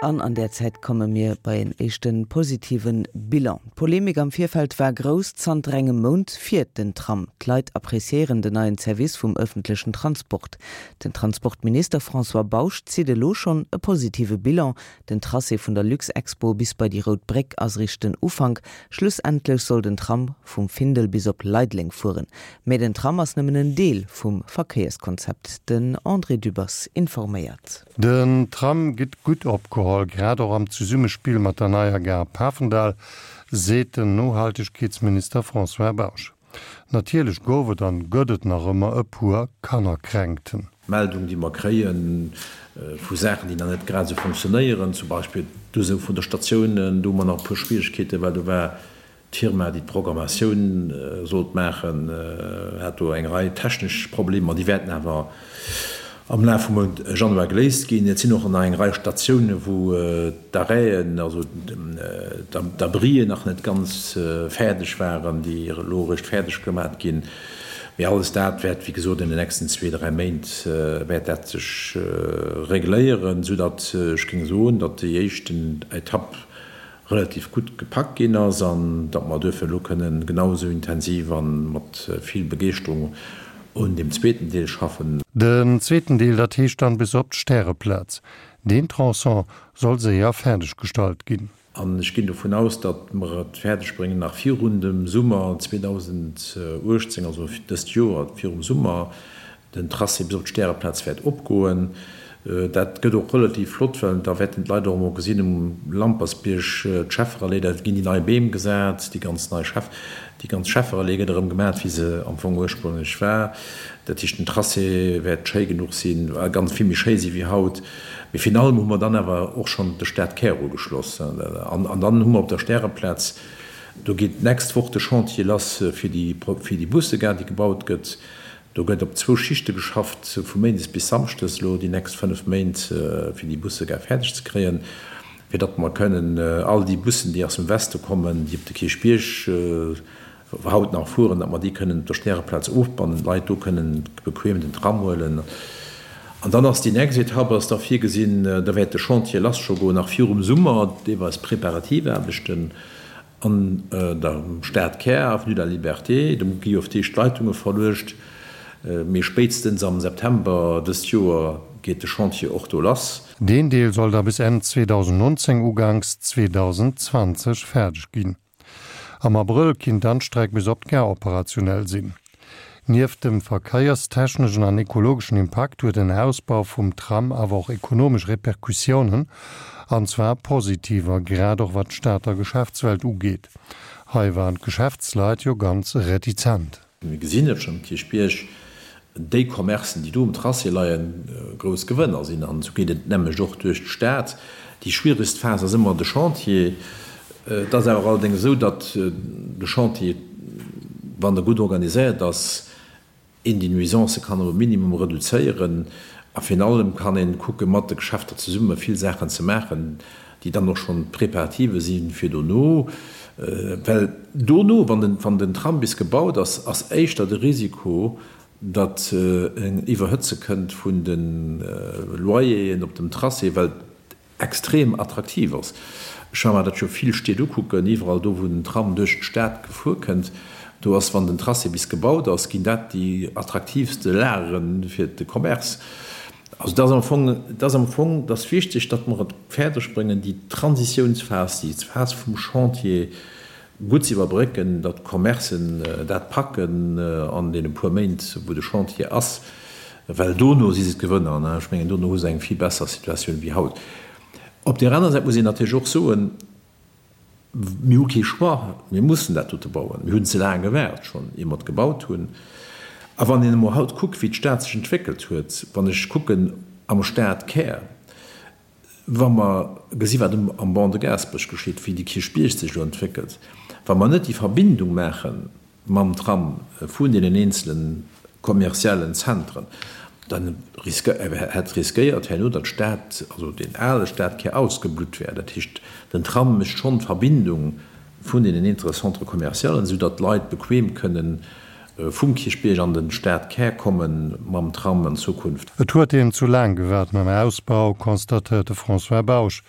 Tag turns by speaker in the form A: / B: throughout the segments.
A: An an där Zäit komme mir bei en éischte positive Bilan. D'Polemik am Virfeld war grouss. Zanter engem Mount fiert den Tram. D'Leit appreciéieren den neien Service vum ëffentlechen Transport. Den Transportminister François Bausch zitt elo schonn e positive Bilan. Den Tracé vun der Luxexpo bis bei déi Rout Bréck ass eréischt den Ufank. Schlussendlech soll den Tram vum Findel bis op Leideleng fueren. Mä den Tram ass nëmmen en Deel vum Verkéierskonzept. Den André Dübbers informéiert.
B: Den Tram gëtt gutt opgeholl, grad och am Zesummespill mat der neier Gare Pafendall, seet den Nohaltegkeetsminister François Bausch. Natierlech gouf et an gëtt et nach ëmmer e puer Kannerkränkten.
C: Meldung, déi mer kréie vu Saachen, déi nach net grad esou funktionéieren, zum Beispill d'Usou vun de Statiounen, do hu mer nach e puer Schwierigkeeten, well do war d'Firma, déi d'Programmatioun sollt maachen, hat do eng Rei technesch Problemer, déi wäerten awer am Laf vum Mount Januar geléist ginn. Et sinn och nach eng Rei Statiounen, wou d'Arrêten, also d'Abrien nach net ganz fäerdeg waren, déi elo eréischt fäerdeg gemat ginn. Mee alles dat wäert, wéi gesot, an den nächsten zwee, dräi Méint wäert dat sech regléieren, soudatt ech géing soen, datt déi éischten Etapp relativ gutt gepackt ginn ass an datt mer duerfir elo kënnen genau esou intensiv a mat vill Begeeschterung un deem zweeten Deel schaffen.
B: Den zweeten Deel, dat heescht dann bis op d'Stäreplaz. Deen Tronçon soll séier fäerdeg gestallt ginn.
C: An ech ginn dovun aus, datt mer et fäerdeg bréngen, nach virun dem Summer 2018, also dëst Joer virum Summer, Den Tracé bis op d'Stäreplaz wäert opgoen. Dat gëtt och relativ flott, well da wäerten d'Leit och emol gesinn, um Lampersbierg, d'Schefferallee, da ginn déi nei Beem gesat, déi ganz nei Scheff, déi ganz Schefferallee gëtt erëm gemat, wéi se am Fong ursprünglech war. Dat heescht, den Tracé wäert schéi genuch sinn, ganz vill méi schéi si wéi haut. Mee virun allem hu mer dann awer och schonn de Stadkär ugeschloss. An dann hu mer op der Stäreplaz, do geet d'nächst Woch de Chantier lass fir déi, fir déi Bussegare, déi gebaut gëtt. Do gëtt op zwou Schichte geschafft, vu méindes bis samschdes elo déi nächst 5 Méint, fir déi Bussegare fäerdeg ze kréien, fir datt mer kënnen all déi Bussen, déi aus dem Weste kommen, déi op de Kierchbierg haut nach fueren, datt mer déi kënnen op der Stäreplaz ofbannen, d'Leit do kënnen bequem den Tram huelen. An dann ass déi nächst Etapp ass da virgesinn, da wäert de Chantier lass scho goen, nach virum Summer, deelweis Preparativaarbechten. An der Stadkär, Avenue de la Liberté, do gi jo op d'éischt d'Leitunge verluecht, mee spéitstens am September dëst Joer geet de Chantier och do lass.
B: Deen Deel soll da bis Enn 2019, uganks 2020 fäerdeg ginn. Am Abrëll kinnt dann d'Streck bis op d'Gare operationell sinn. Nieft dem verkéierstechneschen an ekologeschen Impakt huet en Ausbau vum Tram awer och ekonomesch Repercussiounen, an zwar positiver, grad och wat d'Stater Geschäftswelt ugeet. Hei waren d'Geschäftsleit jo ganz retizent.
C: Mir gesinn et schonn um Kierchbierg, déi Commercen, déi do um Tracé leien, grouss Gewënner sinn. An esou geet et d'nämmlecht och duerch d'Stad. Déi schwieregst Phas ass ëmmer de Chantier. Et ass awer allerdéngs esou, datt de Chantier, wann e gutt organiséiert ass, een déi Nuisancë kann op e Minimum reduzéieren. A virun allem kann ee kucke mat de Geschäfter zesumme vill Saachen ze maachen, déi dann och schonn d'Preparative si fir dono. Well dono, wann den Tram bis gebaut ass, ass éischter de Risiko, datt en Iwwerhëtze kënnt vun de Loyeren op dem Tracé, well extrem attraktiv ass. Ech war mer dat jo vill Stied ukucken, iwwerall do wou den Tram duerch d'Stad gefuer kënnt, do ass, wann den Tracé bis gebaut ass, ginn dat déi attraktiivste Lagere fir de Commerce. Also et ass am Fong, et ass am Fong, et ass wichteg, datt mer et fäerdeg bréngen, déi Transitiounsphas, déi Phas vum Chantier gutt ze iwwerbrécken, datt d'Commercen dat packen an deene puer Méint, wou de Chantier ass, well dono si se d'Gewënner. Ech mengen, dono hu se eng vill besser Situatioun wéi haut. Op där aner Säit muss een natierlech och soen, Mir hu kee Choix, mir mussen dat dote bauen. Mir hunn ze laang gewaart schonn, ier mer et gebaut hunn. A wann een emol haut kuckt, wéi d'Stad sech entwéckelt huet, wann ech kucken am Stadkär, Wa mer gesi wat am Ban de Gaasperech geschitt, wéi de Kierchbierg sech elo entwéckelt, wa mer net déi Verbindung maache mam Tram vun deenen eenzele kommerziellen Zentren, da hätt riskéiert herno, datt d'Stad, also deen ale Stadkär ausgeblutt wär. Dat heescht, den Tram mécht schonn d'Verbindung vun deenen eenzele Centres commercialen, esou datt d'Leit bequem kënnen. vum Kierchbierg an den Stadkär kommen mam Tram an Zukunft.
B: Et huet een zu laang gewaart mam Ausbau, constatéiert de François Bausch.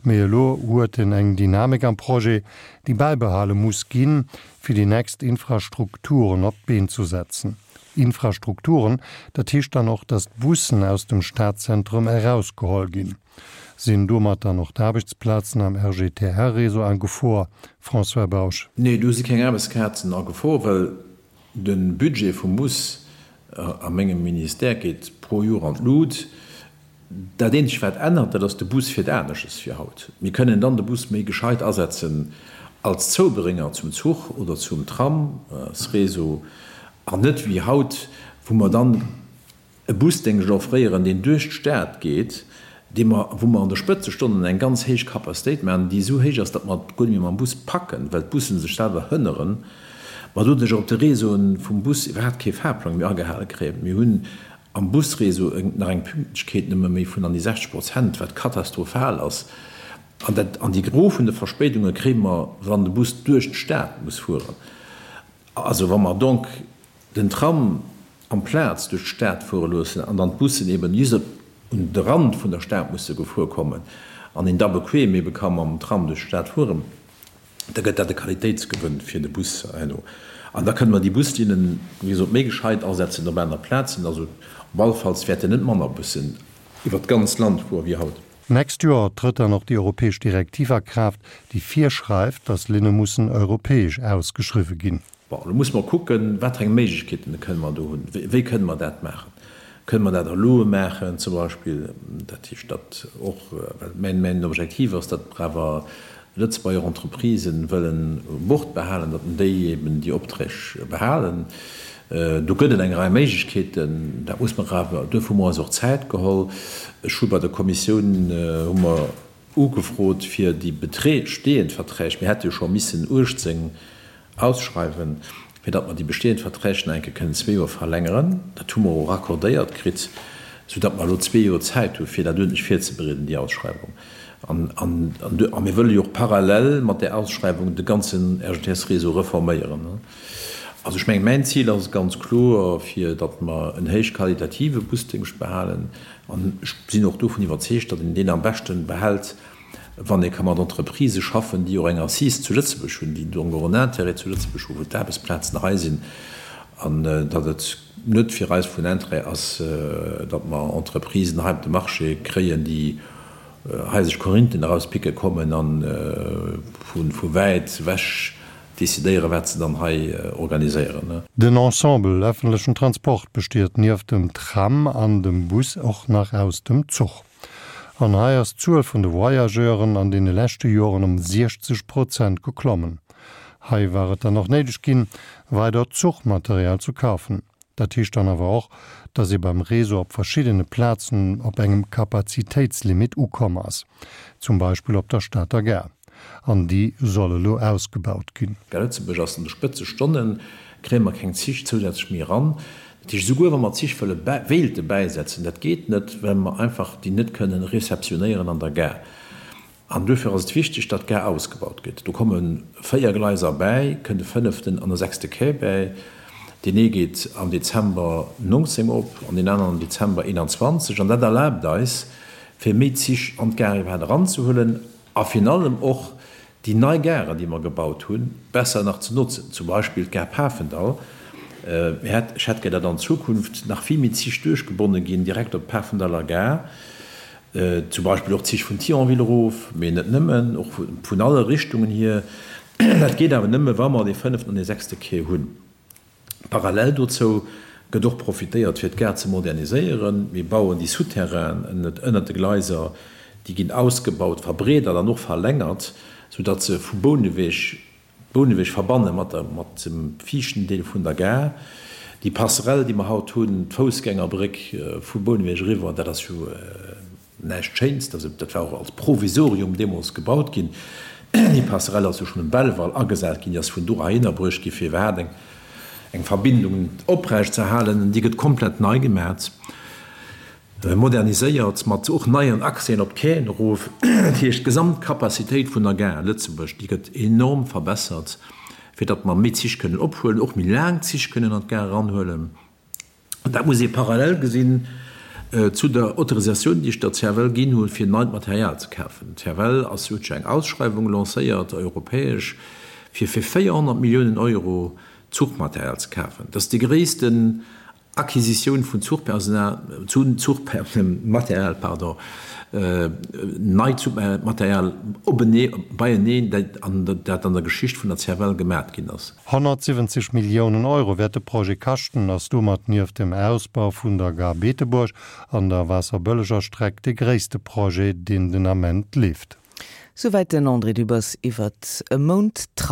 B: Mee elo huet en eng Dynamik am Projet, déi bäibehale muss ginn, fir déi nächst Infrastrukturen op d'Been zu setzen. Infrastrukturen, dat heescht dann och, datt d'Bussen aus dem Stadzentrum erausgeholl ginn. Sinn domat dann och d'Aarbechtsplazen am RGTR-Réseau a Gefor? François Bausch.
C: Nee, do si keng Aarbechtsplazen a Gefor, well de Budget vum Bus a mengem Ministère geet pro Joer an d'Lut. Dat eenzegt wat ännert, dat ass, de Bus fiert anesches wéi haut. Mir kënnen dann de Bus méi gescheit asetzen als Zoubrénger zum Zuch oder zum Tramsréseau an net wéi haut, wou mer dann e Busdéngscht offréieren, deen duerch d'Stad geet, dee mer, wou mer an de Spëtzestonnen eng ganz héich Capacitéit maachen, déi esou héich ass, datt mer et guer net méi mam Bus packen, well d'Busse sech selwer hënneren, mer doduerch och op de Réseauen vum Bus iwwerhaapt kee Fahrplang méi agehale kréien. Mir hunn am Busréseau nach eng Pünktlechkeet nëmme méi vun an déi 60 Prozent, wat katastrophal ass. An dat, an déi Gros vun de Verspéidunge kréie mer, wann de Bus duerch d'Stad muss fueren. Also wa mer donc den Tram amplaz duerch d'Stad fuere loossen an dann d'Bussen eben just op un de Rand vun der Stad musse gefuer kommen an een da bequem ebe ka mam Tram duerch d'Stad fueren, da gëtt dat e Qualitéitsgewënn fir de Bus herno. An da kënne mer déi Buslinnen, wéi gesot, méi gescheit asetzen op aner Plazen. Also op alle Falls wäerten net manner Bussen iwwert d'ganz Land fuere wéi haut.
B: D'nächst Joer trëtt dann och déi europäesch Direktiv a Kraaft, déi virschreift, datt Linne mussen europäesch ausgeschriwwe ginn.
C: Bon, elo musse mer kucken, wat fir eng Méiglechkeeten kënne mer do hunn. Wéi kënne mer dat maachen? Kënne mer dat a Loe maachen zum Beispill? Dat heescht, datt och, well mäin, mäin Objektiv ass, datt mer awer Lëtzebuerger Entreprisen wëllen u Bord behalen, datt déi eben déi Opträg behalen. Do gëtt et eng Rei Méiglechkeeten. Dat muss mer awer, duerfir hu mer eis och Zäit geholl. Ech hu bei der Kommissioun, hu mer ugefrot, fir déi bestehend Verträg, mir hätte jo scho missen 18 ausschreiwen, fir datt mer déi bestehend Verträg nach eng Kéier kënnen zwee Joer verlängeren. Dat hu mer och accordéiert kritt, soudatt mer elo zwee Joer Zäit hu fir dat uerdentlech virzebereeden, déi Ausschreiwung. An a mir wëlle jo och parallel mat där Ausschreiwung de ganzen RGTS-Réseau reforméieren. Also ech mengen, mäin Zil ass ganz kloer, fir datt mer en héichqualitative Busdéngscht behalen. An ech sinn och dovun iwwerzeegt, datt een deen am beschte behält, wann ee ka mat Entreprisë schaffen, déi och eng Assise zu Lëtzebuerg hunn, déi donc och en Intérêt zu Lëtzebuerg hunn, wou d'Aarbechtsplazen hei sinn, an datt et net fir eis vun Intérêt ass, datt mer Entreprisen hei op de Marché kréien, déi hei sech Korinthen erauspicke kommen a vu wäit ewech decidéieren, wat se dann hei organiséieren.
B: Den Ensemble ëffentlechen Transport besteet nieft dem Tram an dem Bus och nach aus dem Zuch. An hei ass d'Zuel vun de Voyageuren an deene leschte Joren ëm 60 Prozent geklommen. Hei war et dann och néideg ginn, weider Zuchmaterial zu kafen. Dat heescht dann awer och, datt ee beim Réseau op verschiddene Plazen op engem Kapazitéitslimit ukomm ass, zum Beispill op der Stater Gare. An déi soll elo ausgebaut ginn.
C: Gare Lëtzebuerg ass an de Spëtzestonnen, kréie mer keng Zich zousätzlech méi eran. Dat heescht, esouguer wa mer Zich wëlle wéilte bäisetzen, dat geet net, well mer einfach déi net kënnen réceptionnéieren an der Gare. An duerfir ass et wichteg, datt d'Gare ausgebaut gëtt. Do komme 4 Gleiser bäi, kënnt e fënneften an e sechste Quai bäi. Deen ee geet am Dezember 19 op an deen aneren am Dezember 21. An dat erlaabt eis, fir méi Zich an d'Gare iwwerhaapt eranzehuelen a virun allem och déi nei Garen, déi mer gebaut hunn, besser nach ze notzen, zum Beispill d'Gare Pafendall. Ech hätt gär, datt an Zukunft nach vill méi Zich duerchgebonne ginn, direkt op d'Pafendaller Gare, zum Beispill och Zich vun Thionville erof, mee net nëmmen, och vun alle Richtungen hier. Dat geet awer nëmme, wa mer dee fënneften an dee sechste Quai hunn. Parallel dozou gëtt och profitéiert, fir d'Gare ze moderniséieren. Mir bauen déi Souterrainen ënnert de Gleiser, déi ginn ausgebaut, verbreedert an och verlängert, soudatt se vu Bouneweg, Bouneweg verbanne mat der, mat dem viischten Deel vun der Gare. Déi Passerelle, déi mer haut hunn, d'Foussgängerbréck vu Bouneweg eriwwer, dat ass jo Näischt Schéins, dat war och als Provisorium deemools gebaut ginn. Déi Passerelle ass jo schonn um Belval agesat ginn, déi ass vun do heihinner bruecht gi fir iwwerhaapt eng eng Verbindung oprecht ze halen. Déi gëtt komplett nei gemat, moderniséiert, mat och neien Accèsen op d'Quaien erof. Dat heescht, d'Gesamtcapacitéit vun der Gare Lëtzebuerg, déi gëtt enorm verbessert. Fir datt mer méi Zich kënnen ophuelen, och méi laang Zich kënnen an d'Gare eranhuelen. An dat muss ee parallel gesinn zu der Autorisatioun, déi ech der CFL ginn hunn, fir neit Material ze kafen. D'CFL ass, huet jo eng Ausschreiwung lancéiert, europäesch, fir fir 400 Milliounen Euro Zuchmaterial ze kafen. Dat ass déi gréissten Acquisitioun vun Zuchpersonal, Zuchmaterial, pardon, neit Zuchmaterial openee, beieneen, dat an der Geschicht vun der CFL gemat ginn ass.
B: 170 Milliounen Euro wäert de Projet kaschten, ass domat nieft dem Ausbau vun der Gare Beetebuerg an der Waasserbëlleger Streck de gréisste Projet, deen den Ament leeft.
A: Souwäit den André Dübbers iwwert e Mount Tram.